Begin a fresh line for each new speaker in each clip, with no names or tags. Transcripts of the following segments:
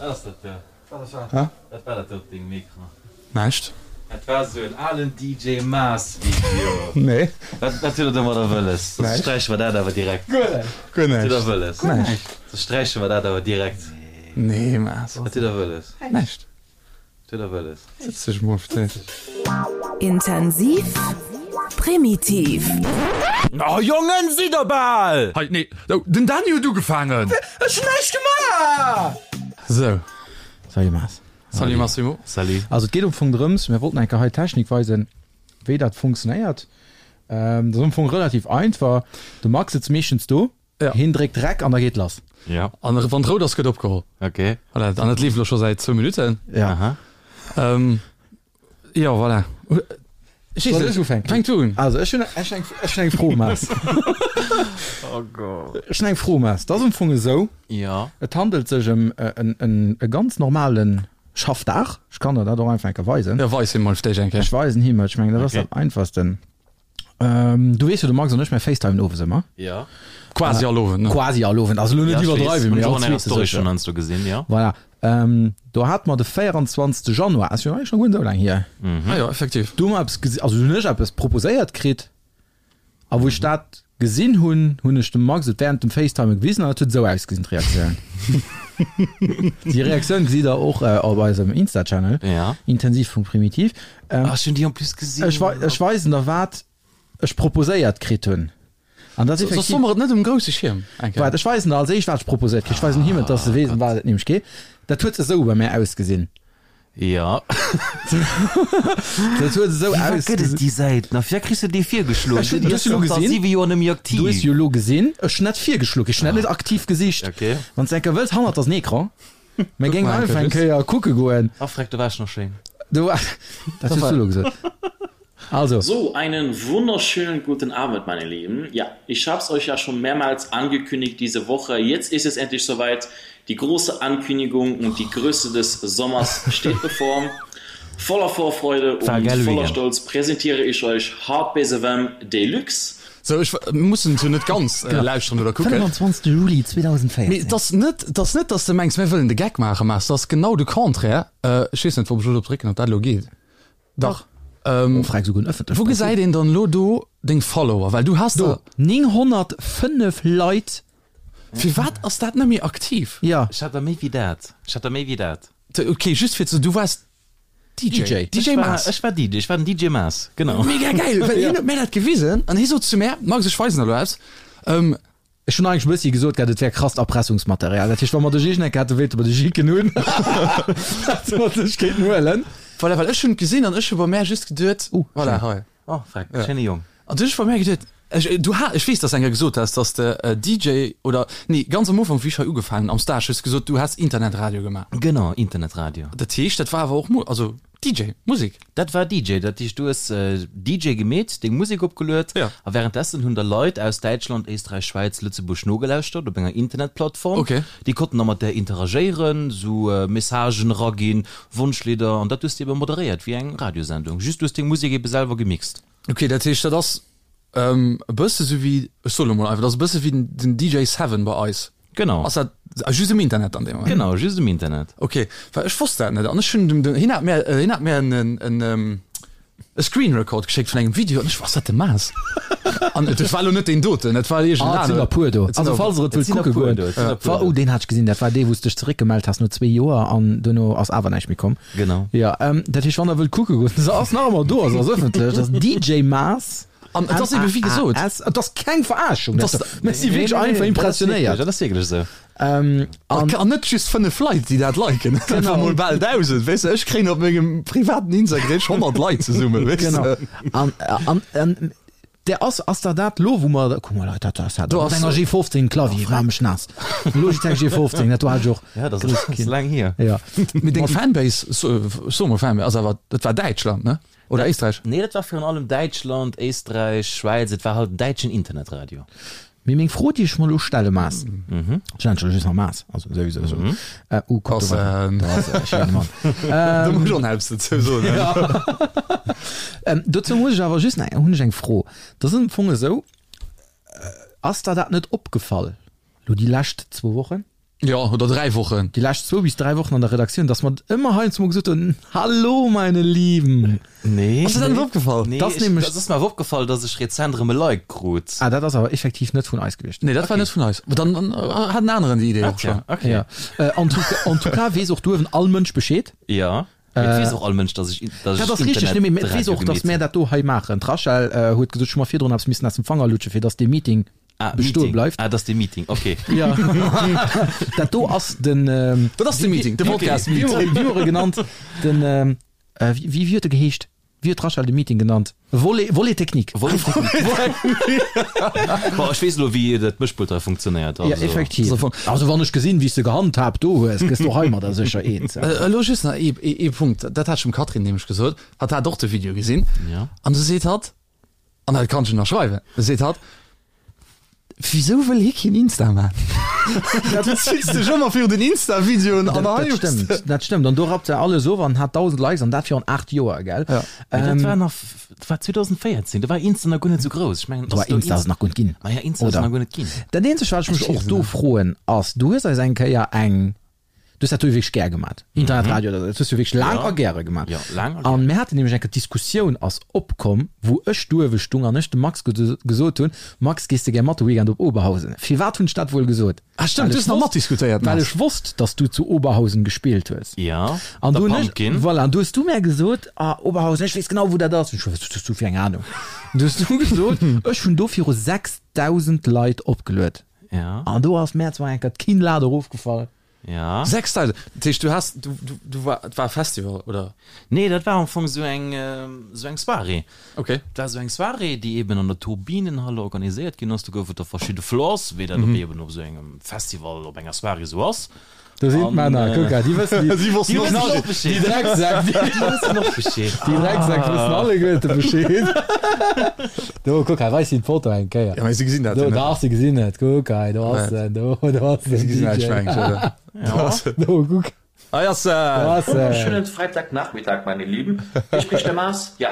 Wat ass dat do?
Wat ass wat?
Wat war dat do op dengem Ecran?
Näischt.
Dat war esou en alen DJ Maas Video.
Nee.
Wat wat huet der domadder wëlles? Soss sträiche mer dat awer direkt.
Guer näischt. Guer
Wat huet der
näischt.
wëlles?
Näischt.
Soss sträiche mer dat awer direkt.
Nee Maas.
Wat huet der wëlles?
Näischt.
Wat huet der wëlles?
Sëtz dech mol fir d'éischt.
Intensiv, primitiv.
Oh Jongen, sidd der bal!
Hei, nee, oh, den Dany huet ugefaangen!
Ech hunn näischt gemaach!
Sou.
Salut Maas.
Salut Massimo.
Salut.
Also et geet am Fong drëms, mir wollten eng Kéier hei d'Technik weisen, wéi dat funktionéiert. Dat ass am Fong relativ einfach. De Max sëtzt meeschtens do,
Ja.
hien dréckt Rec an da geet lass.
Ja.
An wann et rout ass, gëtt opgeholl.
Okay.
Voilà, an et leeft elo scho säit zwou Minutten.
Ja.
Aha.
Ähm, jo, voilà. Ech weess
Soll
net.
ech ufänken?
Fänk du un.
Also ech hunn ech hunn eng ech hunn eng Fro, Maas.
Oh Gott.
Ech hunn eng Fro, Maas. Dat ass am Fong esou,
Ja.
et handelt sech ëm en en e ganz normale Schaffdag. Ech kann der dat och einfach eng Kéier weisen.
Ja, weis him mol fir d'éischt eng Kéier.
Ech weisen him et, ech mengen dat ass
Okay.
dat einfachsten. Ähm, du weess jo, de Max an ech, mir facetimen owes ëmmer.
Ja.
Quasi all Owend, ne?
Quasi all Owend, also elo net
Ja, ech weess.
iwwerdreiwen,
Hunn
mee
ech och
all
an enger
zweete
Story
sécher.
schonn heiansdo gesinn, ja.
Voilà. Ähm, do hate mer de 24. Januar, ass jo eigentlech nach guer net esou laang hier.
Ah jo, effektiv.
Do hu mer eppes gesi, also hunn ech eppes proposéiert kritt, a wou ech dat gesinn hunn, hunn ech dem Max et während dem Facetime gewisen an dat huet esou ausgesinn, d'Reaktioun. Déi Reaktioun gesitt der och op eisem Insta-Channel,
Ja.
intensiv.primitiv. Ähm,
Ah, ech hunn déi en plus gesinn.
Ech, wei, ech weisen der wat ech proposéiert kritt hunn. An dat
Soss
effektiv.
soe mer et net um grousse Schierm eng Kéier.
Waart, ech weisen der als éischt wat ech proposéiert kritt. Ech weisen him et, dass e weess ëm wat et nämlech geet. Dat huet esou bei mär ausgesinn.
Ja.
Dat huet esou
Firwat gëtt et
ausgesinn.
déi Säit nach? Firwat kriss de déi virgeschloen?
Ech hunn
Déi
du
ass
hues jo elo
zanter
gesinn.
siwe Joer net méi aktiv.
Du hues jo elo gesinn, ech hunn net virgeschloen, ech hunn dat net aktiv gesicht.
Okay.
Wann s de eng Kéier wëlls, hannert ass en Ecran. Mir
Guck
géingen
mal eng
einfach
Kéier
eng
just.
Kéier kucke goen.
Ah, freck, do war ech nach schéin.
Du, dat hues du elo gesot. Also.
So, einen wunderschönen guten Abend, meine Lieben. Ja, ich hab's euch ja schon mehrmals angekündigt diese Woche. Jetzt ist es endlich soweit. Die große Ankündigung und die Größe des Sommers steht bevor. Voller Vorfreude
War
und
geil
voller
Weekend.
Stolz präsentiere ich euch Hardbase FM Deluxe.
Sou, ech mussen et jo net ganz lauschteren oder kucken.
25. Juli 2014.
Mee et ass net, et ass net, dass de mengs, mir wëllen de Geck maachen, mä et ass genau de Contraire. Ech weess net, ob ech elo drop drécken, ob dat elo geet. Dach.
Oh, frag souguer en ëffentlecht
Wou gesäit een dann elo do deng Follower? Well du has
Do,
der.
905 Leit.
Firwat ass dat net méi aktiv?
Ja.
Ech hat der méi wéi dat. Ech hat der méi wéi dat.
Ok, just fir ze, du waars DJ.
DJ.
DJ
Ech war,
Maas.
ech war DJ, ech war den DJ Maas, genau.
Mega geil, well hien huet mär dat gewisen an hie sot zu mär, Max, ech weisen der elo eppes.
Ech hunn eigentlech e bëssi gesot gehat, et wär krasst Erpressungsmaterial. Dat heescht, wa mer dech iergendeng Kéier hätte wéilte mer dech jicken hunn, hätte mer dech kéinten huelen.
Voilà, well ech hunn et gesinn an ech hu bei mär just geduet,
Uh,
voilà,
schéin.
hei.
Oh, freck, schéine Jong.
An du hunn ech bei mär geduet, ech, du ha, ech weess, dass du eng Kéier gesot has, dass de DJ oder, nee, ganz am Ufank, wéi ech hei ugefaangen hunn am Stage, hues de gesot, du häss Internetradio gemaach.
Genau, Internetradio.
Dat heescht, dat war awer och Mu, also DJ, Musek.
Dat war DJ, dat heescht du hues DJ gemeet, deng Musek opgeluet
Ja.
a wärenddessen hunn der Leit aus Däitschland, Éisträich, Schwäiz, Lëtzebuerg nogelauschtert op enger Internetplattform.
Okay.
Déi konnten da mat där interagéieren, sou Messagen eraginn, Wonschlidder an dat hues de ebe moderéiert wéi eng Radiosendung, just du hues deng Musek ebe selwer gemixt.
Okay, dat heescht dat ass e bësse sou wéi, ech soe lo mol einfach, dat ass e bësse wéi den DJ Seven bei eis.
Genau.
Ass dat just um Internet dann dee Moment?
Genau, just um Internet.
Okay, well ech wosst dat net an ech hunn dem, dem, hien hat mär, hien hat mär en, en, e Screen Record geschéckt vun engem Video an ech, ass dat de Maas? An et war lo net deen doten, et war iergend
Ah, et sinn der
aneren.
puer do.
Et sinn
Also
der,
falls der et
Et
wëllt
sinn der
kucke
puer
goen.
do, et sinn der puer
Wa,
do.
oh, deen hat ech gesinn, dat war dee wou s dech zeréckgemellt has no zwee Joer an duerno ass awer näischt méi komm.
Genau.
Ja, ähm, dat heescht, wann der wëllt kucke goen, se ass nach ëmmer do, also ass ëffentlech, dat ass DJ Maas.
An et ass ebe wéi gesot.
M-A-A-S. Et ass keng Verarschung,
Et ass-
dat. Mir si wierklech einfach impressionéiert.
Dat ass wierklech esou.
Ähm,
An,
an,
an net just 5 Leit, déi dat liken, et
Genau.
einfach mol bal 1.000, weess de, ech kréien op mengem privaten Instagram 100 Leit zesummen, weess
genau.
de.
An, an, an der ass, ass der dat lo, wou mer, kuck mol, dat ass dat,
Do
mat
ass-
enger G15 Clavier, maach mech naass. Logitech G15, dat do hat ech och.
Ja, dat
Grouss
ass
Kind.
laang hier.
Ja.
Mee deng Fanbase, so, so mol Fanbase, ass awer, dat war Däitschland, ne? Oder Éisträich?
Nee, dat war virun allem Däitschland, Éisträich, Schwäiz, et war halt en däitschen Internetradio.
Mee meng Fro, déi ech mer elo stelle, Maas, ech nennen dech elo just nach Maas, also souwisou esou, äh, uh, kuck, do war, do ass e schéine Mann.
Do muss ech och nach eppes dozou soen.
Ähm, dozou muss ech awer just nach, hunn ech eng Fro. Dat ass am Fong esou, ass der dat net opgefall, elo déi lescht zwou Wochen?
Jo, oder 3 Wochen.
Déi lescht zwou bis 3 Wochen an der Redaktioun, dass mer ëmmer heiansdo mol gesot hunn, Hallo meine Lieben!
Nee.
Ass dir dat net opgefall?
Nee,
Das
ech,
nämlech-
das ass mir awer opgefall, dass ech rezent erëm e Like krut.
Ah, dat ass awer effektiv net vun eis gewiescht.
Nee, dat war net vun eis. Dann dann hat en aneren déi Idee och schon.
Okay.
Ja. Äh, en tout, en tout cas weess och duerwen all Mënsch Bescheed.
Ja. Mee et weess och all Mënsch, dass ech, dass
Dat
ech
ass richteg, nee, mee et weess
Internetradio
och, dass
gemeet
mär
hunn.
dat do hei maachen. D'Rachel äh, huet gesot, ech hu mer virdrun eppes missen aus dem Fanger lutschen, fir dass dee Meeting
Ah,
bestoe
Meeting.
bleift.
Ah, dat ass de Meeting, okay.
Ja. Dat do ass den. Ähm,
Dat ass de Meeting, de Podcast-Meeting.
Wéi huet e genannt? Den, ähm, äh, wéi, wéi huet e geheescht? Wéi huet d'Rachel de Meeting genannt? Volet, Volet technique.
Volet technique. Bon, ech weess elo, wéi dat Mëschpult hei funktionéiert.
Ja,
Also.
effektiv. Also, wann ech gesinn, wéi s de gehandhaabt do hues, gëss du heimadder sécher eens.
Äh, elo just nach ee, ee, ee Punkt, dat hat ech dem Catherine nämlech gesot, hatt hat och de Video gesinn.
Ja.
An du seet hatt, An dat kann ech ënnerschreiwen. Da seet hatt, Wisou wëll hie keen Insta man? Du zills dech ëmmer virun den Insta-Videoen an
Dat,
hei
dat
hues de.
stëmmt, dat stëmmt. An do rappt se alles of an hat 1.000 Likes an dat virun 8 Joer, gell?
Ja.
Mee dat
Ähm,
war nach, dat war 2014, do war Insta nach guer net esou grouss. Ech mengen,
do war
ass do
Insta ass nach guer net ginn.
Ma ja, Insta ass
Oder?
nach guer net ginn.
Dat eenzegt, wat ech mech
Ech
och
weess
do
net.
froen, ass, du hues eis eng Kéier eng Du hues dat do wierklech gär gemat. Internetradio, mm -hmm. dat hues du wierklech laang
Ja.
a gäre gemat.
Ja, laang a
An mir haten nämlech eng Diskussioun ass opkomm, wou ech duerwe stung an ech dem Max gesot hunn, Max, gees de gär mat de Weekend op Oberhausen? Firwat hunn ech dat wuel gesot?
Ah stimmt,
Well
du
ech
hues nach
wosst,
matdiskutéiert,
well
Max.
ech wosst, dass du zu Oberhausen gespillt hues.
Ja,
An
der
du hunn ech,
Pumpkin.
voilà, an du hues du mär gesot, ah, Oberhausen, ech weess genau, wou dat ass. Ech, wat hues du fir eng Ahnung? An du hues du gesot, ech hunn do viru 6.000 Leit opgeluet.
Ja.
An do ass mär zwar eng Kéier d'Kinnlad erofgefall.
Ja.
6000, dat heescht du has, du, du, du war, et war e Festival, oder?
Nee, dat war am Fong esou eng, esou eng Soirée.
Okay.
Dat war esou eng Soirée, déi eben an der Turbinenhalle organiséiert ginn ass. Do gouf et da verschidde Floors, wéi dat op eben op esou engem Festival, op enger Soirée esou ass.
Do sinn
An,
d'Männer, kuck, déi wëssen, déi,
Si wossten
déi
och
wëssen
och Bescheed.
Déi Drecksäck, déi,
Déi wëssen och Bescheed.
déi Drecksäck wëssen alleguerte Bescheed. Do, kuck, hei weis si d'Foto eng Kéier.
Ja, mee si gesinn dat
Do,
jo net.
dach, si gesinn et. Kuck hei, do ass en, do, do ass
Si
den
gesinn dat,
DJ.
ech mengen, oder?
Ja.
Do, kuck,
Hei ass
do
en!
ass en.
Wunderschönen Freitagnachmittag, meine Lieben. Hier spricht der Mars. Ja,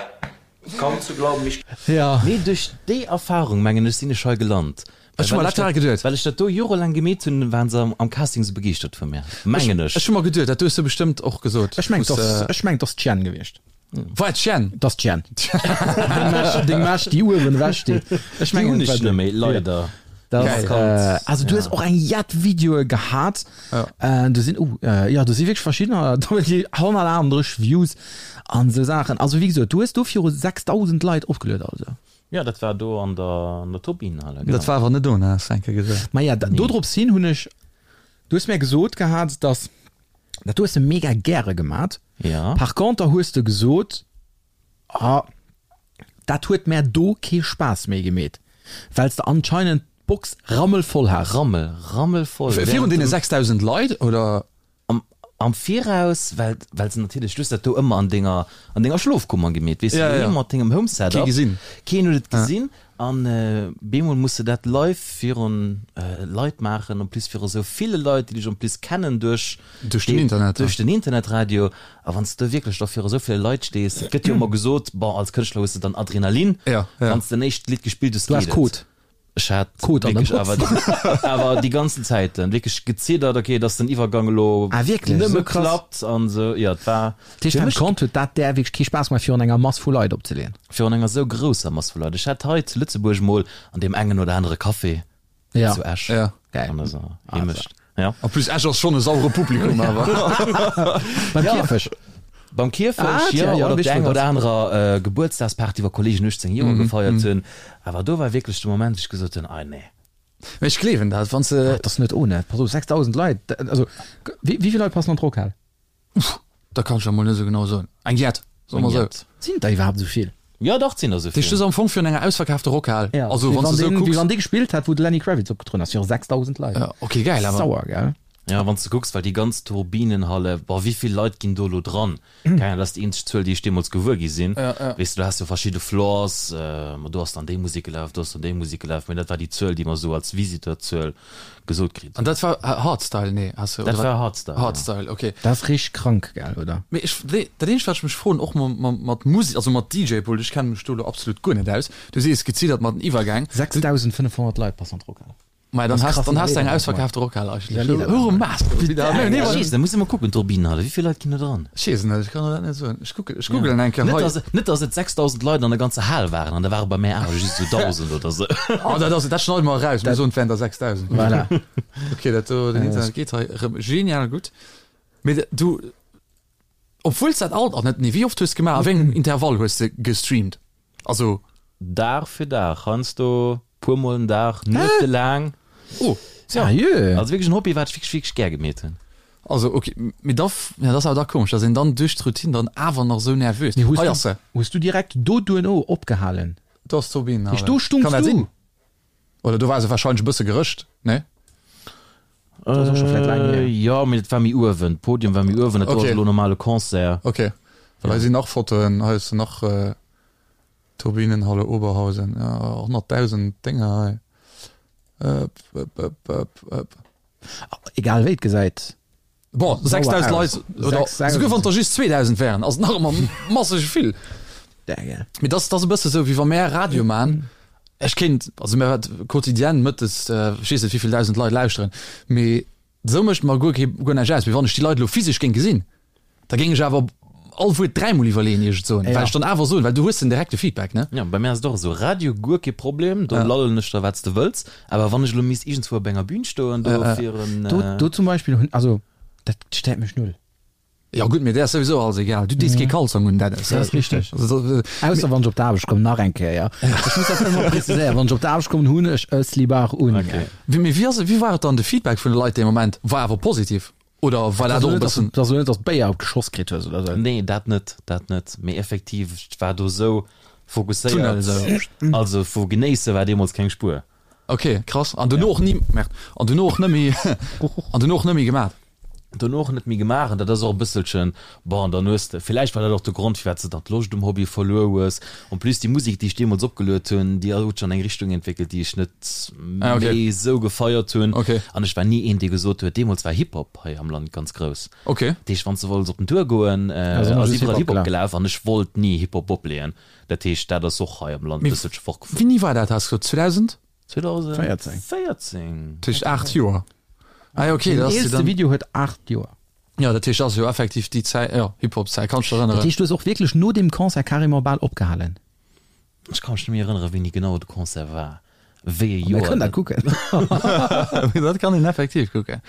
kaum zu glauben, ich.
Ja.
Nee, duerch déi Erfahrung, mengen ech, sinn ech hei gelant.
Ech hu mer dat direkt geduet.
Well ech dat do jorelaang gemeet hunn, waren se am Casting sou begeeschtert vu mir, mengen ech.
Ech hu mer geduet, dat hues du bestëmmt och gesot.
Ech mengen, dass, ech mengen, dass d'Jen gewiescht.
War et d'Jen?
Dass d'Jen. Deng Mesch, deng Mesch, déi uewen ewech steet. Ech
Déi
mengen,
hunn
et war
ech net
déi.
méi, leider.
Das,
Geil.
äh, also du hues och eng jett Videoe gehat.
Ja.
Äh, do sinn, oh, äh, ja, do si wierklech verschiddener, do hunn déi 138 Views an esou Saachen. Also wéi gesot, du hues do viru 6.000 Leit opgeluet, also.
Ja, dat war do an der, an der Turbinenhalle, genau.
Dat war awer net do, ne, has de eng Kéier gesot.
Maja, da, dodrops hin hunn ech, du hues mär gesot gehat, dass, dat hues de mega gäre gemat.
Ja.
Par conter hues de gesot, ah, dat huet mär do kee Spaass méi gemeet, well s de anscheinend d'Box rammelvoll has.
Rammel, rammelvoll.
Virun deene 6.000 Leit, oder?
Am, am Viraus, well, well se natierlech, du hues dat do ëmmer an denger, an denger Schlofkummer gemeet, weess de,
Ja, ja.
doheem mat dengem Home Setup.
Kee gesinn.
Keen huet et gesinn. An bemol muss de dat live virun Leit maachen, en plus viru sou ville Leit, déi dech en plus kennen duerch,
Duerch den Internet, ja.
duerch den Internetradio. A wann s de wierklech da viru sou ville Leit stees, et gëtt jo ëmmer gesot, bon, als Kënschtler hues de dann Adrenalin,
Ja, ja.
wann s de en éischt Lidd gespillt hues,
Du has
geet et.
Code.
Ech hat
Kot an der
wierklech awer, awer déi ganzen Zäiten wierklech geziddert, okay, dass den Iwwergang elo
Ah, wierklech?
nëmme
Esou krass?
klappt an esou. Jo, et war
Dat heescht,
fir
beim
mech
Kont huet dat där wierklech kee Spaass gemaach, virun enger Mass vu Leit opzeleeën?
virun enger esou grousser Mass vu Leit. Ech hat hei zu Lëtzebuerg mol an deem engen oder anere Café
Ja.
zu Esch
Ja.
Geil.
an eiser Heemecht. Ja.
En plus Esch ass schonn e sauere Publikum awer.
Beim Kierfech.
Beim Kierfech,
Ah,
jo,
tja, ja,
oder op
wéi
der enger
dat
oder anerer äh, Gebuertsdagsparty, wou Kollegen 18 Joer gefeiert hunn. Awer do war wierklech de Moment, wou ech gesot hunn, ah nee.
Mee ech gleewen dat, wann s de.
Dat ass net ohne. Pass op, 6.000 Leit, dat, also, wéi, wéi vill Leit passen an d'Rockhal?
Da kann ech der mol net esou genau soen. Eng jett, soe mer esou.
Sinn der iwwerhaapt esou vill?
Jo, dach, et sinn der esou
Dat heescht, du
vill.
ass am Fong virun enger ausverkaafter Rockhal.
Ja,
Also,
wéi
wann s
wann
de esou
deen, wéi
kucks.
wann dee gespillt hätt, wou de Lenny Kravitz opgetrueden ass, viru 6.000 Leit.
Ja, okay, geil awer.
Sauer, gell?
Ja, wann s de kucks, well déi ganz Turbinenhalle, boah, wéi vill Leit ginn do elo dran? Keng Ahnung, dat ass déi eenzeg Zuel, déi ech deemools gewuer gi sinn.
Ja, ja.
Weess de, du has jo verschidde Floors, ma do ass dann déi Musek gelaf, do ass dann déi Musek gelaf, mee dat war déi Zuel, déi mer esou als Visiteur-Zuel gesot kritt
An
hunn.
dat war Hardstyle, nee, has de,
Dat
oder
war
wat?
Hardstyle, ja.
Hardstyle, okay.
Dat ass richteg krank, gell, oder?
Mee ech, nee, dat eenzegt, wat ech mech froen, och ma, mat Musek, also mat DJ-Pult, ech kenne mech do elo absolut guer net aus, du sees geziddert mat den Iwwergäng.
6.500 Leit passen an d'Rockhal.
Mei dann has dann has du eng ausverkaafte Rockhal eigentlech. Huere Maas
Da muss ech mol kucken, d'Turbinenhalle, wéi vill Leit ginn do dran?
Ech weess et net, ech kann der dat net soen. Ech kucken, ech googelen eng Kéier
hei. Net dass et 6.000 Leit an der ganzer Hal waren an da ware bei mär awer just esou 1.000 oder
sou. Oh dat ass, dat schneide mer eraus, mir soen et wären der 6.000.
Voilà.
Ok, dat do, den Internet geet hei erëm genial gutt. Mee du, obwuel s dat alt, oh net, nee, wéi oft hues de gemaach, a wéi engem Intervall hues de gestreamt? Also.
Dag fir Dag, heiansdo puer mol den Dag, nuetelaang.
Oh,
Sérieux?
Also wierklech en Hobby, wat ech wierklech, wierklech gär gemeet hunn.
Also ok, mee da, ja, dat ass awer da komesch, dass een dann duerch d'Routine dann awer nach esou nervös.
Mee hues
Hei
du,
ass se.
hues du direkt do duerno opgehalen?
Do ass d'Turbinenhalle.
Heescht, do stungs
Kann dat
du?
sinn? Oder do war se wahrscheinlech e bësse gerëscht, ne?
Dat ass och scho vläit laang hier.
Jo, mee dat war méi uewen, d'Podium war méi uewen, dat do ass
Ok.
elo normale Concert.
Ok, well hei sinn nach Fotoen, hei hues de nach Turbinenhalle Oberhausen, jo, 100.000 Dénger hei. Ëp, ëp, ëp, ëp, ëp.
Egal wéi et gesäit
Bon, 6.000 Leit, oder souguer wann der just 2.000 wären, ass et nach ëmmer masseg vill. Mee dat ass e bësse sou, wéi wa mär Radio man. Ech kéint, also mär wat quotidienne mëttes, ech weess net wéivill dausend Leit lauschteren, mee esou mécht mer guer kee, guer näischt aus. Mee wann ech déi Leit elo physesch géing gesinn, da géing ech awer all Wuert dräimol iwwerleeën, ier ech et soen, well ech dann awer soen, well du hues den direkte Feedback, ne?
Jo, bei mär ass et och esou, Radio guer kee Problem, do lallen ech der wat s de wëlls, awer wann ech elo misst iergendzwou op enger Bühn stoen do fir en.
Do, do zum Beispill hunn, also dat stéiert mech null.
Jo gutt, mee där ass souwisou alles egal, du dees kee Kalzong un, Dennis.
Dat ass richteg. Ausser wann ech op d'Aarbecht kommen, nach eng Kéier. Ech muss dat ëmmer preziséieren, wann ech op d'Aarbecht kommen, hunn ech e Slibard un.
Mee wéi ass, wéi war et dann, de Feedback vun de Leit dee Moment war awer positiv? Oder war dat och e bëssen.
Dass du net dass Béier op d'Geschoss kritt hues oder sou?
Nee, dat net, dat net. Mee effektiv, ech war do sou fokusséiert. Also vu genéisse war deemools keng Spuer.
Ok, krass. An dono och ni, merde, an dono och net méi, an dono och net méi gemaat?
Dono och net méi gemaach. An dat ass och e bësselchen, bon, dann hues de, villäicht war dat och de Grond, firwat s de dann d'Loscht um Hobby verluer hues. En plus déi Musek, déi ech deemools opgeluet hunn, déi huet sech an eng Richtung entwéckelt, déi ech net méi esou gefeiert hunn. An ech war ni een, dee gesot huet, deemools war Hip-Hop hei am Land ganz grouss. Dat heescht, wann s de wollts op den Tour goen, ass iwwerall Hip-Hop gelaf an ech wollt ni Hip-Hop opleeën. Dat heescht, dat ass och hei am Land e bësselche fortgefuer.
Wéini war dat, has de gesot? 2000?
2014.
Dat heescht 8 Joer. Ah jo, okay.
Den eelste Video huet 8 Joer.
Jo, dat heescht, dat ass jo effektiv déi Zäit, jo, Hip-Hop-Zäit, kann ech dech erënneren.
Dat heescht, du hues och wierklech no deem Concert carrément bal opgehalen?
Ech ka mech net méi erënneren, wéini genau de Concert war, wéi e Joer.
Mir kënnen dat kucken.
Dat kann een effektiv kucken.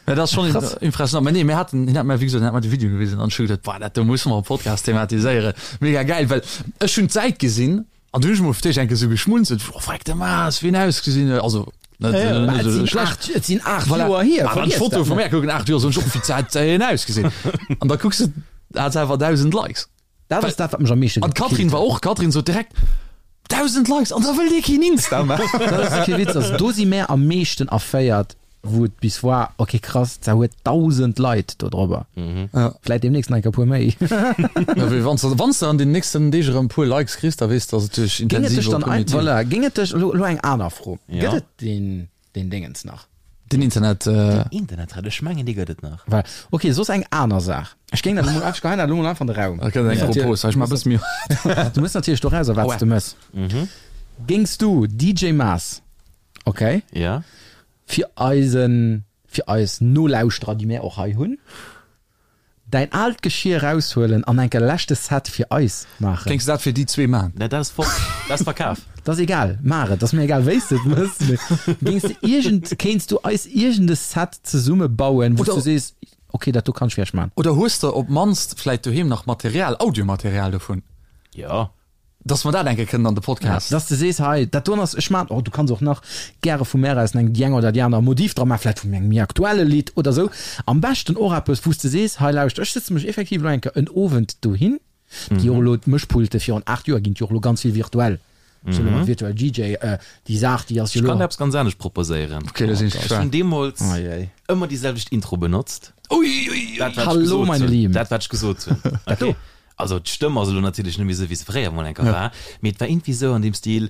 Mä dat ass schonn impressionant. Mä nee, mir haten, hien hat mir, wéi gesot, hien hat mir de Video gewisen an ech hu geduet, boah, dat do musse mer am Podcast thematiséieren. Mega gäil, well ech hunn d'Säit gesinn An du hunn ech mol fir d'éischt eng Kéier esou geschmunzelt, oh freck de Maas, wéi en ausgesinn huet, also net
Mä et
esou
sinn
schlecht.
8, et sinn 8
Voilà.
Joer hier,
Awer an
vergiess
d'Foto
dat
vu
net.
mär kucken, 8 Joer, soen ech och, wéi hat en ausgesinn? An da kucks de, hat se awer 1.000 Likes.
Dat ass dat, wat mech am meeschte
An d'Catherine
gekillt
war
huet.
och, d'Catherine sot direkt, 1.000 Likes an da wëll dee keen Insta maachen.
Dat ass kee Witz, also do si mär am meeschten erféiert, wou et bis war, ok krass, da huet 1.000 Leit do drobber. Vläit deemnächst nach eng Kéier e puer méi.
Ja, wéi wann s de, wann s de an den nächsten Deeg erëm e puer Likes kriss, da weess de, dass et duerch
Géing et dech
intensive
dann ein,
Primitiv.
voilà, géing et dech, elo, elo eng aner Fro,
Ja.
gëtt et deen, deen Déngens nach?
Den Internet.
Den Internet, ech mengen dee gëtt et nach.
Voilà. Ok, soss eng aner Saach. Ech géing dat elo mol, ech geheien dat elo mol einfach an de Raum.
Ok, eng Propos, ech maache bësse méi.
Du mëss natierlech dorauser, wat s de mëss. Géings du DJ Maas, ok,
Ja.
fir eisen, fir eis Nolauschterer, déi mär och hei hunn, däin aalt Geschir eraushuelen an enke leschte Set fir eis maachen?
Géings de dat fir déi zwee maachen?
Nee, dat ass fort, dat ass verkaf.
Dat ass egal, maach et, ass mir egal wéi s de et mëss, mee géings de iergend, kéints du eis iergend e Set zesumme bauen, wou s du sees, ok, dat do kann ech fir iech maachen?
Oder hues de op d'mannst vläit doheem nach Material, Audiomaterial dovun?
Jo.
Dass mer dat eng Kéier kënnen an de Podcast.
Dass de sees, hei, dat doen ass, ech maan, oh, du kanns och nach gäre vu mär aus eng, déi eng oder déi aner Modif dra maachen, vläicht vun engem méi aktuelle Lidd oder sou. Am beschten och eppes, wou s de sees, hei, lauscht, ech sëtze mech effektiv elo eng Kéier en Owend dohin, déi och elo d'Mëschpulte virun 8 Joer ginn et jo och elo ganz vill virtuell, ech soe elo mol virtuell DJ, déi Saach, déi ass jo
Ech
elo.
kann der eppes ganz anescht proposéieren.
Okay, da sinn ech
Ech hunn
gespaant.
deemools
Ei, ei.
ëmmer déi selwecht Intro benotzt.
Ui, ui, ui.
Dat, wat ech
Hallo,
gesot
meine
hunn.
Lieben.
Dat, wat ech gesot hunn.
Dat do.
Okay. Also d'Stëmm ass elo natierlech net méi esou wéi se fréier mol enker war, mee et war iergendwéi esou an deem Stil,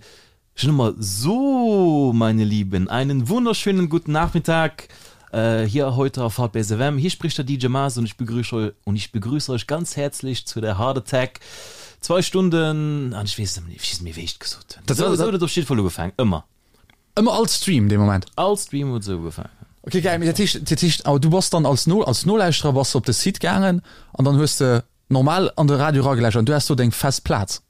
ech hunn ëmmer So, meine Lieben, einen wunderschönen guten Nachmittag hier heute auf Hardbass FM, hier spricht der DJ Maas und ich begrüße und ich begrüße euch ganz herzlich zu der Heart Attack zwei Stunden an ech weess net méi, ech weess net méi wéi ech et gesot hunn. Esou huet et op jidde Fall ugefaangen, ëmmer.
Ëmmer all Stream dee Moment?
All Stream huet esou ugefaangen.
Ok geil, mee dat heescht, dat heescht awer du bass dann als No als Nolauschterer bass de op de Site gaangen an dann hues de normal an de Radio eragelauschtert an du has do deng fest Plaz?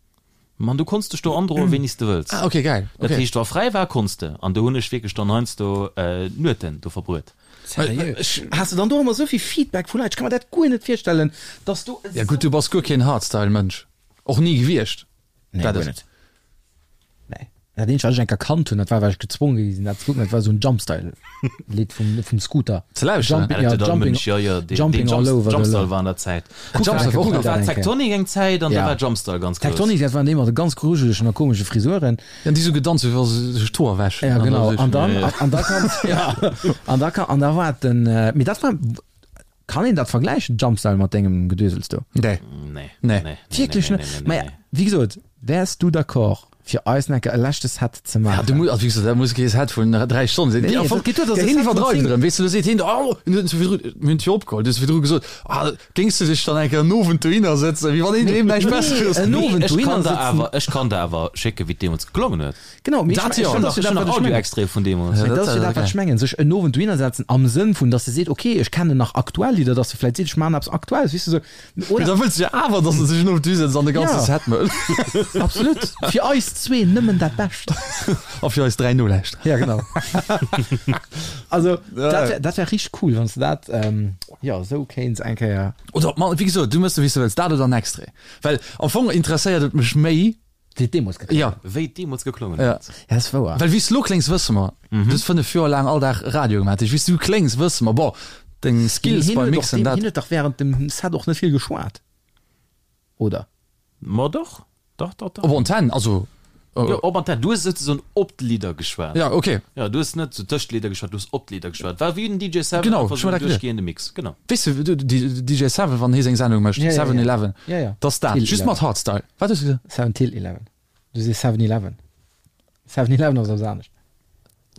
Mann, du konns dech do androen wéini s de wëlls.
Ah ok geil,
ok. Dat heescht wa fräi war konns de, an do hunn ech wierklech dann heiansdo Nueten do verbruet.
Seriö? Has de dann do ëmmer esou vill Feedback vu Leit? Ech ka mer dat guer net virstellen, dass do
esou. Ja gutt, du bass guer keen Hardstyle-Mënsch, och ni gewiescht.
Nee, guer net. Nee. Dat eenzegt, wat ech eng Kéier kannt hunn, dat war, well ech gezwonge gi sinn, dat ze kucken, dat war esou en Jumpstyle-Lidd vum, vum Scooter.
Ze lauschteren?
Jumping, ja, Jumping,
ja, ja, deen,
Jumping
deen
all
Jump,
over the
Jumpstyle war an der Zäit.
Kuck
dat
eng
Kuck,
Kéier,
da war
eng Kéier.
Tecktonik eng Zäit an da
Ja.
war Jumpstyle ganz grouss.
Tecktonik, dat waren déi mat de ganz grujelegen a komesche Frisuren.
Ja, déi sou gedanzt hu wéi wa se sech d'Hoer wäschen.
Ja,
An da
genau.
sech-
An dann,
Ja, ja.
an da kann, ja, an da kann, an da war den, mee dat war, Kann een dat vergläichen, Jumpstyle mat dengem Gedösels do?
Nee.
Nee.
Nee.
Nee.
Wierklech
nee,
net?
nee, nee,
Mä
nee.
wéi gesot, wäers du d'accord fir eis enke e leschte Set ze
Ja,
maachen?
du muss, also wéi gesot, dat muss kee Set vun 3 Stonnen sinn.
Nee,
Déi
nee,
am Fong,
dat geet duer, dass
der
e
heen
Set vun
iwwerdreift
10
erëm, weess du, do seet heen, oh, en huet virdru, mir hunn d'Tür opgeholl, du hues virdru gesot, ah, géings du dech dann eng Kéier en Owend dohinner sëtzen, wéi wann een doheem näischt Besseres
en
huet.
Owend
Ech
dohinner
kann der
sëtzen.
awer, ech kann der awer schécken, wéi et deemools geklongen huet.
Genau, mee
Dat
ech,
jo.
ech, dat ass jo
Ech
dat,
hunn
wat
nach
ech mengen.
Audio-Extraite vun deemools.
Ja,
Mee
dat
dat ass jo
ass
dat, wat
geil.
ech mengen, sech en Owend dohinner setzen am Sënn vun, dass e seet, okay, ech kennen nach aktuell Lidder, dass e vläicht seet, ech maachen eppes Aktuelles, weess de, sou.
Mee da wëlls du jo awer, dass e sech en Owend dohisetzt an de ganze
Ja.
Set mécht.
Absolut. Fir eis zwee nëmmen dat Bescht.
A fir eis 3 Nolauschterer.
Ja, genau. Also, dat wär, dat wär richteg cool, wann s de dat, jo, esou kéints eng Kéier.
Oder, ma wéi gesot, du méchs, wéi s de wëlls, dat oder en Extrait. Well am Fong interesséiert et mech méi,
Wéi et deemools geklongen
Ja.
Wéi et deemools geklongen
Ja.
huet.
Ja, ass wouer.
Well wéi s de lo kléngs, wësse mer. Du hues 5 Joer laang all Dag Radio gemaach. Dat heescht, wéi s du kléngs, wësse mer. Bon, deng Skills
Hien
beim
huet och
Mixen,
deem,
dat.
hien huet dach während dem Set och net vill geschwat, oder?
Ma doch, dach, dach, dach.
Op Antenn, also.
Jo, op Antenn. Du hues souzesoen op d'Lidder geschwat.
Ja, okay.
Ja, du hues net sou tëscht d'Lidder geschwat, du hues op d'Lidder geschwat. War wéi den DJ Seven,
Genau,
einfach
ech
sou
hu
en
dat geduecht.
duerchgehende Mix. Genau.
Weess de, du, di, DJ Seven, wann hie seng Sendung mécht,
Ja, ja,
Seven
ja.
Eleven,
Ja, ja.
dat ass dat.
Till
Just
Eleven.
mat Hardstyle. Wat hues du gesot?
Seven till Eleven. Du sees Seven Eleven. Seven Eleven ass eppes anescht.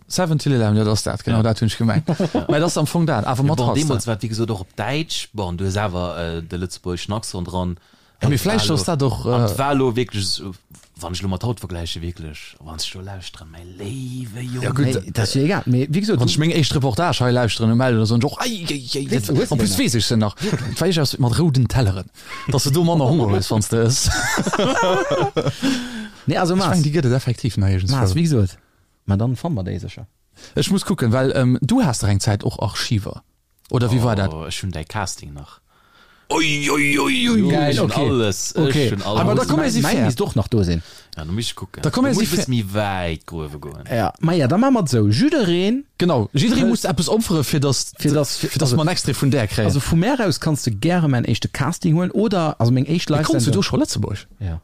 Seven till Eleven, jo, dat ass dat, genau
Ja.
dat hunn ech gemengt. Mä dat ass am Fong dat, awer
Ja,
mat
bon,
Hardstyle.
deemools war et wéi gesot och op Däitsch. Bon, du hues awer de lëtzebuergeschen Accent dran.
Ja, mee vläicht ass dat och.
An et war elo wierklech esou, wann ech elo mat haut vergläichen, wierklech, wann ech do lauschteren, mäi léiwe Jong.
Ja, gutt.
Nee, dat ass jo egal. Mee wéi gesot,
Wann ech meng éischt Reportage hei lauschteren um Meld oder soen ech och, ei, ei, ei,
Weess- hues du
en plus
déi nach?
weess ech se nach. Et war iergendwas mat rouden Telleren, dass de do manner Honger hues, wann s de ëss.
Nee, also
Ech
Maas,
mengen, déi gëtt et effektiv nach
Maas,
iergendswou.
wéi gesot, ma dann fanne mer déi sécher.
Ech muss kucken, well du has dach eng Zäit och Archiver, oder wéi war dat?
Oh, ech hunn däi Casting nach.
Ui, ui, ui, ui.
Geil,
Ech hunn
okay.
alles, ech
Okay.
hunn alles.
Aber da komm mir si
Mäin
fair.
misst och nach do sinn.
Ja, da muss ech kucken.
Da komm mir
muss
si
ech e bësse
fair.
méi wäit gruewe goen.
Ja, ma ja, da maache mer et esou. Jiddereen,
Genau, jidderee muss eppes opfere fir dass,
Fir dass-
fir dass mer en Extrait vun där kréien.
also vu mär aus kanns de gäre mäin éischte Casting huelen oder, also meng éischt
Mee konns du
Live-Sendung.
do scho Lëtzebuerg?
Ja.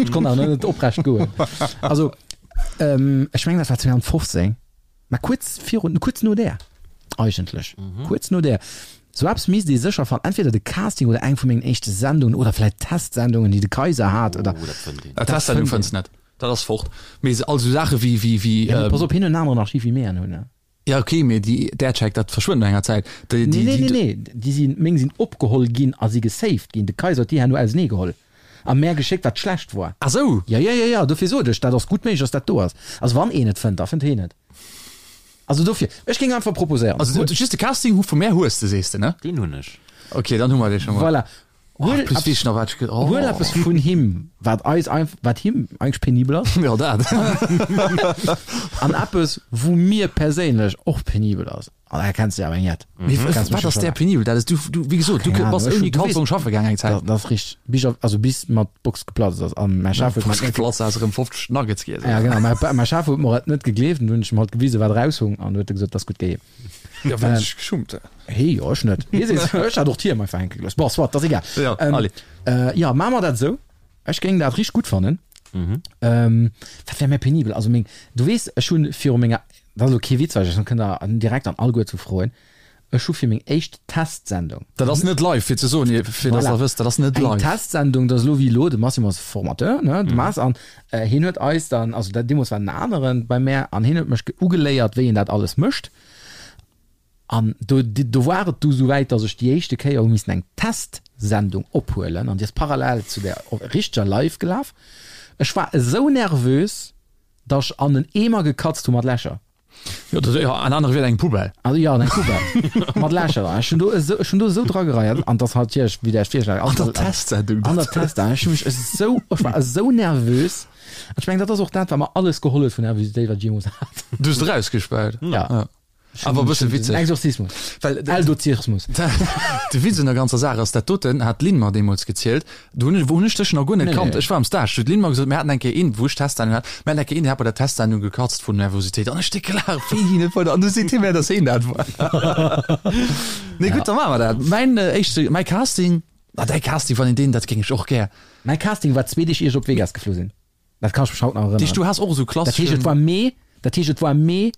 Ech konnt awer net oprecht goen. Also, ähm, ech mengen dat war 2015, mä kuerz virun, kuerz no där eigentlech, kuerz no där. Sou eppes misst ee sécher fannen, entweder de Casting oder eng vu mengen éischte Sendungen oder vläit Testsendungen, déi de Kaiser hat oder.
Oh, dat fënnt een.
Ah, Testsendung fënns net, dat ass fort. Mee all sou Saache wéi, wéi, wéi.
Ja, mee pass op, hien huet en aneren Archiv wéi mir en hunn, ne?
Ja ok, mee déi Aircheck, dat verschwënnt no enger Zäit. Déi,
Nee,
déi,
nee,
déi,
nee, nee, déi sinn, meng sinn opgeholl ginn a si gesaved ginn. De Kaiser huet déi herno ausenee geholl a mär geschéckt, wat schlecht war.
Ah sou!
Ja, ja, ja, ja, dofir sot ech, dat ass gutt méiglech, dass dat do ass. Also wann een et fënnt, da fënnt heen et. Also dofir, ech géing einfach proposéieren.
Also just de Casting hu vu mär hues de, sees de, ne?
Deen hunn ech.
Ok, dann hu mer dee scho mol.
Voilà.
Oh,
Huel
plus weess ech nach wat ech ge oh.
Huel eppes vun him, wat eis einf wat him eigentlech penibel ass.
Jo, dat.
An eppes, wou mir perséinlech och penibel ass. An da kenns de awer eng jett.
Mee
Kenns
wat
mech
ass
jo
där
schon.
penibel? Dat ass du, du, wéi gesot, du
Keng Ahnung,
bass
ech
ouni
hun- du weess-
Kalzong schaffe gaang eng Zäit.
Dat, dat ass richteg. Bis op, also bis mer d'Box geplatzt ass. An mäi Chef huet mer
Box geplatzt ass, erëm 50 Nuggets giess.
Ja, genau. Mäi, mäi Chef huet mer et net gegleeft an du hunn ech em halt gewisen, wat eraushung an du huet e gesot, dat ass gutt geheem.
Ja, well ech geschummt hu.
Hee, jo, ech net. Hie seet, ech hat och d'Hiem einfach hänke gelooss. Bon, soit, dat ass egal.
Ja,
Ähm,
allez.
Äh, ja, maache mer dat esou. Ech géing dat richteg gutt fannen. Ähm, wat wär méi penibel? Also meng, du weess, ech hunn viru menger, dat ass elo kee Witz, well ech kënnt der direkt an alleguer zu froen, ech hu fir meng éischt Testsendung,
Dat ass net live, fir ze soen, fir dass
Voilà.
der wësst, dat ass net
eng
live.
Testsendung, dat ass elo wéi elo, de Massimo ass Formateur, ne, de Mass, an hien huet eis dann, also dat deemools war en aneren bei mär, an hien huet mech ugeléiert, wéi een dat alles mécht. An do, do war et du souwäit, dass ech déi éischte Kéier hu missen eng Testsendung ophuelen an déi ass parallel zu der richteger live gelaf. Ech war esou nervös. Datt ech an en Eemer gekatzt hu mat Lächer.
Jo, dat, jo, an anere Wierder eng Poubelle.
Also jo, an eng Poubelle mat Lächer dran. Ech hunn do esou, ech hunn do esou dragereiert an dass halt natierlech, wéi der iech virstellt,
An der Testsendung.
An der Testsendung. Ech hu mech esou, ech war esou nervös. An ech mengen, dat ass och dat, wat mer alles geholl huet vun Nervositéit, wat ech jeemools hat.
Du hues et erausgespäut.
Ja.
Awer e bësse witzeg.
Exorzismus.
Well
Eldozismus.
De Witz un der ganzer Saach ass, dat doten hat d'Lynn mer deemools gezielt, do hunn ech, wou hunn ech dech nach guer net kannt. Ech war am Stage, do huet d'Lynn mer gesot, mir haten eng Kéier een, wou ech d'Testsendung hat, mir haten eng Kéier een, dee hat bei der Testsendung gekatzt vun Nervositéit. An ech déck gelaacht, wéi hien et wollt. An du seet hie mir, datt hien dat war. Nee, gutt, da maache mer dat. Mäin éischte, mäi Casting, ah, däi Casting, wann een deen, dat géing ech och gär.
Mäi Casting war zwee Deeg ier ech op Vegas geflu sinn. Dat kann ech mech haut nach erënneren.
Deeg, du has och esou
Dat heescht, et
klasseschen.
war Mee, dat heescht, et war Mee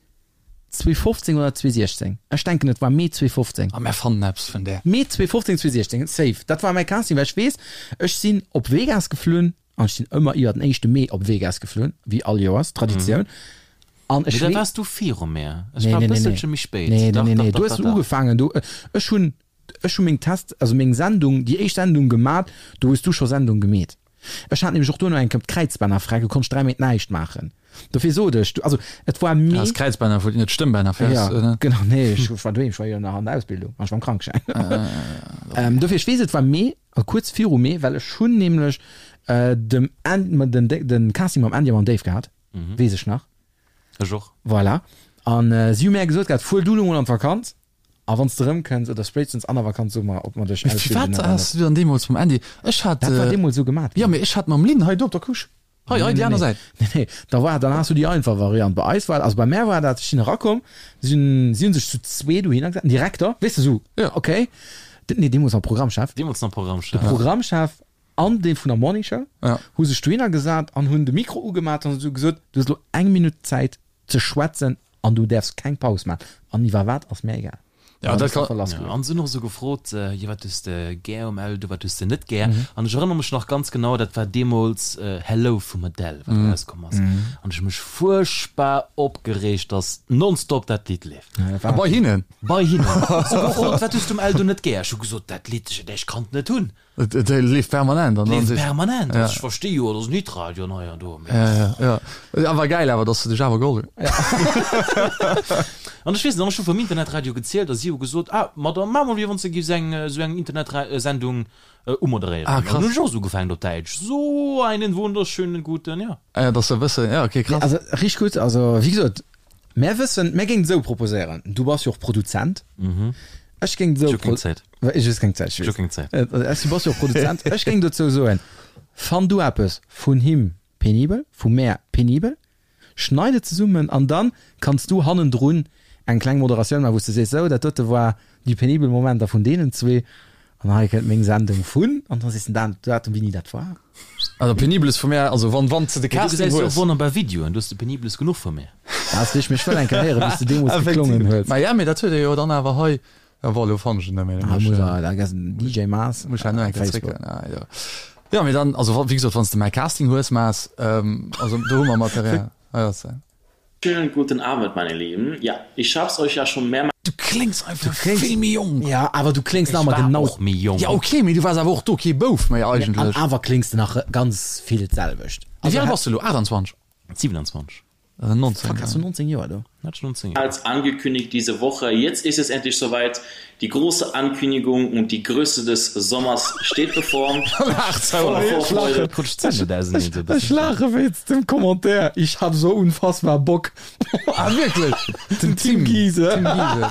2015 oder 2016. Ech denken, et war Mee 2015.
A mär fannen eppes vun där.
Mee 2015, 2016, safe. Dat war mäi Casting, well ech weess, ech sinn op Vegas geflunn an ech sinn ëmmer iwwer den éischte Mee op Vegas geflunn, wéi all Joers, Traditioun. An ech
Mee da
wee.
waars du viru mär. Ech
Nee,
war e
nee, nee, nee.
bësselche méi spéit.
Nee, nee,
Dach,
nee,
dach,
nee.
dach,
Du hues
dach, dach.
ugefaangen, du, ech hunn, ech hu meng Test, also meng Sendung, déi éischt Sendung gemat, do hues du scho Sendung gemeet. Ech hat nämlech och duerno eng Kéier d'Kräizbänner fräi, do konnt ech 3 Méint näischt maachen. Dofir sot ech, also et war
Ah,
Mee.
d'Kräizbänner wou net d'Stëmmbänner fäers,
Ja,
oder?
genau, nee, ech war doheem, ech war jo nach an der Ausbildung an ech war am Krankeschäin. Dofir, ech weess, et war Mee, also kuerz viru Mee, well ech hunn nämlech dem An-, den, den Casting mam Andy a mam Dave gehat, weess ech nach.
Ech och.
Voilà. An si hu mär gesot gehat, fuer du elo mol an d'Vakanz. A wann s de erëmkënns, oder spéitstens an der Vakanz, so mer, ob mer dech
Mee
ausbilden
firwat
oder
has
net.
du dann deemools mam Andy? Ech hat.
Dat war deemools esou gemat
Jo,
ginn.
mee ech hat mam Lynn hei do op der Couche. Hei, hei déi aner Säit.
Nee, nee, da war, dann has du déi einfach Variant. Bei eis war, also bei mär war dat, ech sinn erakomm, si hunn, si hunn sech zu zwee dohinner gesat, den Direkter, weess de, esou,
Jo.
okay, den, nee, deemools nach Programmchef,
Deemools nach Programmchef.
de Programmchef an dee vun der Morning Show
Ja.
hu sech dohinner gesat an hunn de Mikro ugemat an esou gesot, du hues elo eng Minutt Zäit ze schwätzen an du däerfs keng Paus maachen an iwwer wat ass mär egal.
Ja, dat kann.
Ja, an se hunn och esou gefrot, jo wat hues de gär um Eldo, wat hues de net gär? An ech erënnere mech nach ganz genau, dat war deemools Hello vum Adele, wat erauskomm ass. An ech hu mech fuerchtbar opgereegt, dass nonstop dat Lidd leeft.
A bei hinnen?
Bei hinnen. Se hu gefrot, wat hues de um Eldo net gär? Ech hu gesot, dat Lidd, ech kann et net hunn.
Et leeft permanent an
Leeft permanent, also ech versti jo, et ass en Hitradio an hei an do, mee.
Ja, ja, ja. Awer gäil awer, dass se dech awer geholl hunn.
An ech weess nach, ech hu vum Internetradio gezielt a si hu gesot, ah, ma da maache mer wéi wann s de giffs eng esou eng Internetsendung umoderéieren.
Ah, krass.
An dann hunn ech och esou ugefaangen op Däitsch, So einen wunderschönen guten, ja.
Ah ja, dass se wëssen, ja, okay, krass.
Also richteg gutt, also wéi gesot, mär wëssen, mär géingen et esou proposéieren, du bass jo och Produzent, ech géing et esou.
Ech hu keng Zäit.
Ech hues keng Zäit, ech
Ech hu keng Zäit.
Du bass jo och Produzent. Ech géing dozou soen, Fann du eppes vun him penibel, vu mär penibel, schneid et zesummen an dann kanns du hannendrun eng kleng Moderatioun maachen, wou s de sees, sou, dat dote war déi penibel Momenter vun deenen zwee an hei kënnt meng Sendung vun an da sees de den Datum, wéini dat war.
Also penibeles vu mär, also wann wann s de de
Mee du
Casting
gesäis jo och
hues.
wonnerbar Videoen, du hues de penibeles genuch vu mir.
Dat ass richteg, mee ech wëll eng Kéier héieren, wéi s de deemools geklongen hues.
Ma ja, mee dat huet ee jo dann awer hei. Ja, bon, elo fannen ech et net méi.
Ah, muss er, da gess DJ Maas.
Muss ich nach eng Kéier
Facebook.
zréckgehen. Ah, jo. Ja, mee dann, also wéi gesot, wann s de mäi Casting hues, Maas, ähm, also do hu mer Material. Ah, ja, se.
Schönen guten Abend meine Lieben, ja ich hab's euch ja schon mehrmals.
Du kléngs einfach vill méi jonk.
Ja, awer du kléngs nach
Ech
ëmmer
war
genau.
och méi jonk.
Ja, okay, mee du waars awer och do kee Bouf méi
An
eigentlech.
awer kléngs de nach ganz vill d'selwecht.
Wéi al bass de elo? 28?
27.
19,
Fuck, hast du 19 Joer do?
Hat ich 19 Joer.
Als angekündigt diese Woche, jetzt ist es endlich soweit, die große Ankündigung und die Größe des Sommers steht bevor. Voller Vorfreude.
Ech laache wéinst dem Commentaire, ich hab so unfassbar Bock.
Ah wierklech?
Den Tim Giese.
Tim Giese.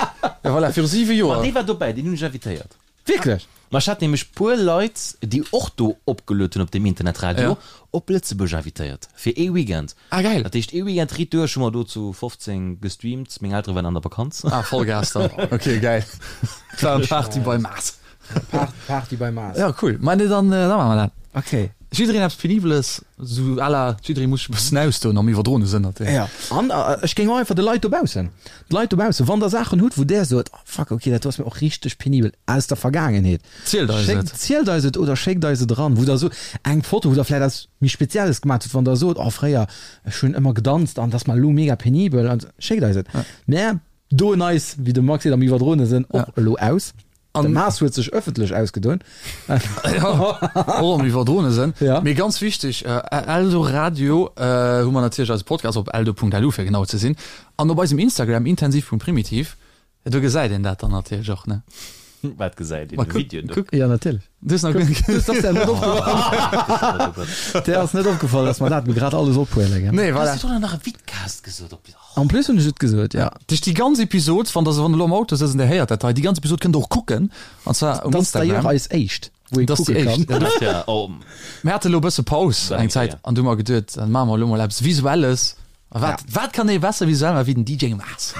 Ja voilà, viru 7 Joer.
Ma dee war dobäi, deen hunn ech invitéiert.
Wierklech?
Ma ech hat nämlech puer Leit, déi och do opgeluet hunn op deem Internetradio,
Ja.
op Lëtzebuerg invitéiert fir ee Weekend.
Ah geil.
Dat heescht ee Weekend riit duerch hu mer do zu 15 gestreamt. Meng Eltere waren an der Vakanz.
Ah Vollgas dann. Okay geil. Et war eng Party bei Maas.
Party bei Maas.
Ja cool. Ma nee dann da maache mer dat.
Okay.
Jiddereen eppes Penibeles, sou à la jidderee muss sech e bëssen ausdoen am iwwerdroene Sënn natierlech.
Ja, an ech géing och einfach de Leit dobaussen, d'Leit dobaussen, wann der Saachen hutt, wou där sot, oh fuck, okay, dat do ass mir och richteg penibel aus der Vergaangenheet,
Zielt eis
schéckt,
et.
zielt eis et oder schéckt eis et eran, wou der sot, eng Foto, wou der vläicht eppes méi Spezielles gemaat hutt, wann der sot, oh fréier, ech hunn ëmmer gedanzt an dat ass mer elo mega penibel, an schéckt eis et. Mär doen eis, wéi de Max seet, am iwwerdroene Sënn och elo aus. De Maas huet sech ëffentlech ausgedoen.
Ja, och am iwwerdroene Sënn.
Ja.
Mee ganz wichteg, Eldoradio hu mer natierlech eise Podcast op eldo.lu fir genau ze sinn an op eisem Instagram intensiv.primitiv, do gesäit een dat dann natierlech och, ne?
Wat gesäit een?
Ma
De
kuck,
Video do?
kuck.
Ja, natierlech.
Du hues nach guer net.
Dat ass der net opgefall. Der ass net opgefall, dass mer dat grad alles ophuelen, gell?
Nee, voilà.
Hues du do nach e Vidcast gesot op.
En plus hunn ech et gesot, ja.
Duerch déi ganz Episod, wann der se wann elo am Auto sëtzt an der héiert dat hei, déi ganz Episod kënnt der och kucken, an zwar um
Dat ass d'ailleurs
Instagram.
eis éischt, wou ee
Dat ass déi
kucke kann.
éischt, ja.
Dat, ja, oh.
Mir hate elo e bësse Paus eng Zäit
Ja.
an du hu mer geduet, dann maache mer elo mol eppes Visuelles. A wat, wat kann ee besser visuell maache wéi den DJ Maas?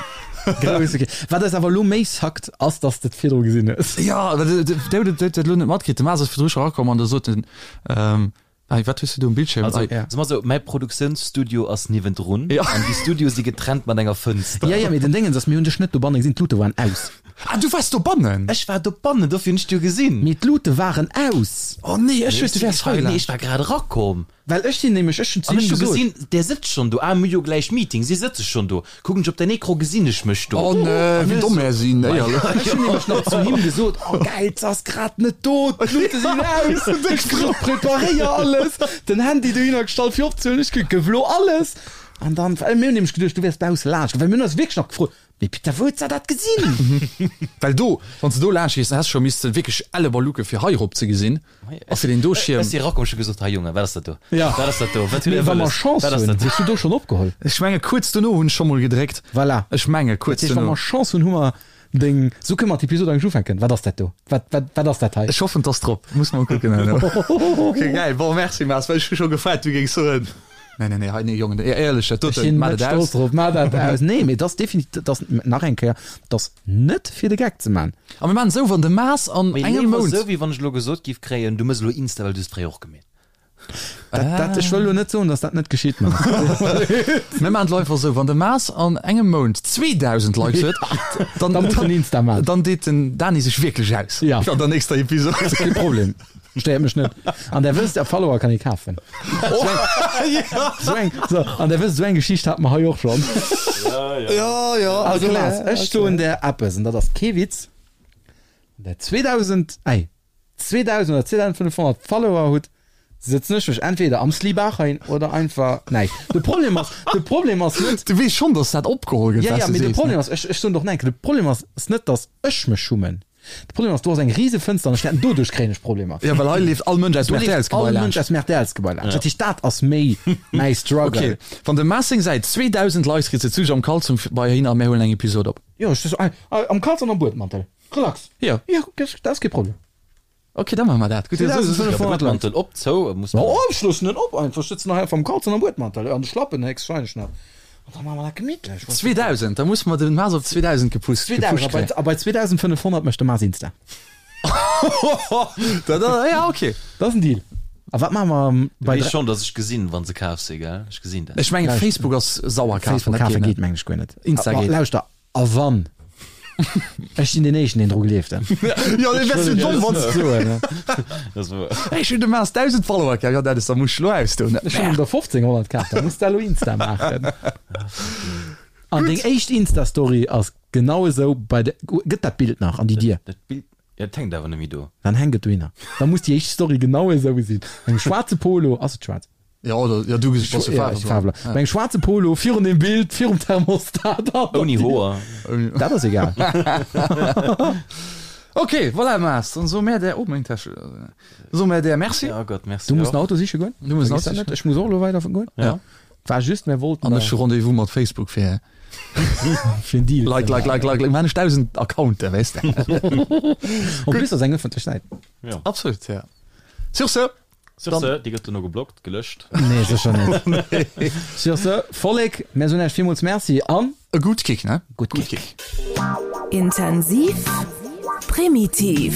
Grousse Ke Wat eis awer elo méi sackt, ass, dass de et virdru gesinn hues.
Ja, well de, de, de, de, de elo net matkritt. De Maas ass virdru scho erakomm an da sot en, ähm, Ei, wat hues du do um Bildschirm?
Also,
Ei.
so mal so, mäi Produktiounsstudio ass niewendrun
Ja.
an déi Studioe si getrennt mat enger Fënster.
Ja, ja, mee den Déngens ass, mir hunn dech net dobanne gesinn, d'Lute waren aus.
Ah, du waars dobannen?
Ech war dobannen, dofir hunn ech d'jo gesinn.
Mee d'Lute waren aus.
Oh nee, ech duecht, du wäers hei
Nee,
laanscht.
ech war grad erakomm.
Well ech sinn nämlech, ech hunn zu
An
him
ech hu
gesot.
gesinn, där sëtzt schonn do. Ah, mir hu jo gläich Meeting, si sëtze schonn do. Kucken ech op den Ecran, gesinn ech mech do.
Oh nee, wéi domm mär sinn, éierlech.
Ech hunn nämlech nach zu him gesot, oh geil, s'ass grad net do, d'Lute sinn aus, ech preparéier alles, den Handy dohinner gestallt fir opzehuelen, ech gëff elo alles. An dann, well mir hunn nämlech geduecht, du wäers bausse laanscht, well mir hunn eis wierklech nach gefrot, mee Peter, wou huet se dat gesinn?
Well do, wann s de do laanscht gees, dann häss de scho misste wierklech elle Baluke fir hei erop ze gesinn. A fir deen do Schierm.
Ech si erakomm, ech hu gesot, Hei Jongen, wat ass dat do?
Ja.
Wat ass dat do? Wat hutt
Mee
Dir
wa mer
wëlles?
Chance
Wat ass
hunn,
dat do?
hues du do schonn opgeholl.
Ech menge kuerz dono hunn ech scho mol gedréckt.
Voilà.
Ech menge kuerz
Dat heescht, wa
dono.
mer Chance hunn, hu mer deng. Sou kënne mer d'Episod eigentlech ufänken. Wat ass dat do? Wat, wat, wat ass dat hei?
Ech hoffen, 't ass drop. Muss mol kucken herno. Ok, geil. Bon, merci Mars, well ech hu scho gefaart, du géings soen, Nee, nee, nee, hei, nee, Jongen, éierlech, dat
Ech
doten,
sinn
maat
net
et
stolz
aus.
drop. Maach dat aus. Nee, mee dat ass definitiv, dat ass, nach eng Kéier, dat ass net fir de Geck ze man.
A mir maachen esou, wann de Mars an
Mee
engem
léiwer
Mount.
esou, wéi wann ech elo gesot giff kréien, du mëss elo Insta, well du hues fréier och gemeet.
Dat, dat, ech wëll elo net soen, dass dat net geschitt, mä.
Mir maachen et elo einfach esou, wann de Mars an engem Mount 2.000 Likes huet, dann,
Da muss en Insta maachen.
dann deet den Dani sech wierklech aus.
Ja.
An der nächster Episod.
Kee Problem. Stéiert mech net. An der wësst, Follower kann ee kafen. Sou eng, so, an der wësst, sou eng Geschicht hate mer hei och schonn.
Ja, ja.
Also Lars, ech soen der eppes, an dat ass kee Witz, Wann der 2000, ei, 2000 oder 2500 Follower hutt, sëtzen ech mech entweder am Slibaach hein oder einfach näischt. De Problem ass, de Problem ass net,
Du weess schonn, dass dat opgeholl gëtt,
ja,
wat
ja,
du
mee de
sees,
Problem
ne?
ass, ech, ech soen doch nach eng Kéier, de Problem ass, ass net, dass ech mech schummen. De Problem ass, do ass eng rise Fënster an ech wäerten doduerch kréien ech Problemer.
Ja, well hei leeft all Mënsch aus dem
Do leeft
RTL-sGebai
all
laanscht.
Mënsch aus dem RTL-sGebai laanscht. Dat heescht, dat ass méi mäi Struggle.
Okay, wann de Maas seng Säit 2000 Likes kritt, sëtz du am Kalzong bei hin a mär huelen eng Episod op.
Jo, ech sëtz am Kalzong am Buedmantel. Relax.
Jo.
Jo, dat ass kee Problem.
Okay, da maache mer dat. Gutt,
2500 Likes.
Buedmantel op, zou, muss
Ma ech loossen en op einfach. Ech sëtzen nach einfach am Kalzong am Buedmantel, an de Schlappen héchstwahrscheinlech nach. An da maache mer dat gemittlech.
2000, da musse mer den Maas op 2000 gepusst
2000,
gepusht
a bei, a bei 2500 mécht de Maas Insta.
kréien. Da, da, ja, okay.
Dat ass en Deal. A wat maache mer bei
Weess schonn, dass ech gesinn, wann se kaf si, gell? Ech gesinn dat.
Ech mengen, Facebook ass sauer kafen,
Facebook
dat
kafe
geet net.
geet mengen ech guer net.
Insta
Ma
geet.
Lauschter, a wann? Ech sinn deen éischten, deen dru gleeft.
Jo, dee wärst du domm, wann s
soen, ne?
Dat ass wouer.
Ech hunn dem Maas 1000 Follower kaf, jo, dat ass, da muss ech elo ausdoen.
Ech hunn der 1500 kaf, da muss de elo Insta maachen. An deng éischt Insta-Story ass genau esou bei de, gëtt dat Bild nach an déi Dier?
Dat Bild, ja, dat hänkt awer net méi do.
Dann hänkt et dohinner. Da muss déi éischt Story genau esou sinn. Engem schwaarze Polo, ass et schwaarz?
Ja, oder, ja, du bass jo
Ja, ech Faarwler. Bei engem schwaarze Polo, virun dem Bild, virum Thermostat.
Ouni Hoer.
Dat ass egal.
Ok, voilà, Maas, dann soe mär där, oh, meng Täsche, soe mär där Merci.
Ja Gott, merci
Du muss
och.
den Auto siche goen.
Du muss den Auto
Vergiss dat
siche
net. Ech muss och elo weider goen.
Ja.
War just, mär wollten
An ech hu Rendez-vous mat Facebook fir
fir en Deal.
Like, like, like, like, like, man ech 1000 Accounten, weess de.
En plus ass eng ëffentlech Säit.
Ja.
Absolut, ja. Sur ce!
Sur ce, déi gëtt dono geblockt, gelöscht.
Nee, sécher net. Sur ce, Vollek, mär soen Iech villmools Merci an.
E gutt Kick, ne?
Gutt Kick.
Intensiv, primitiv.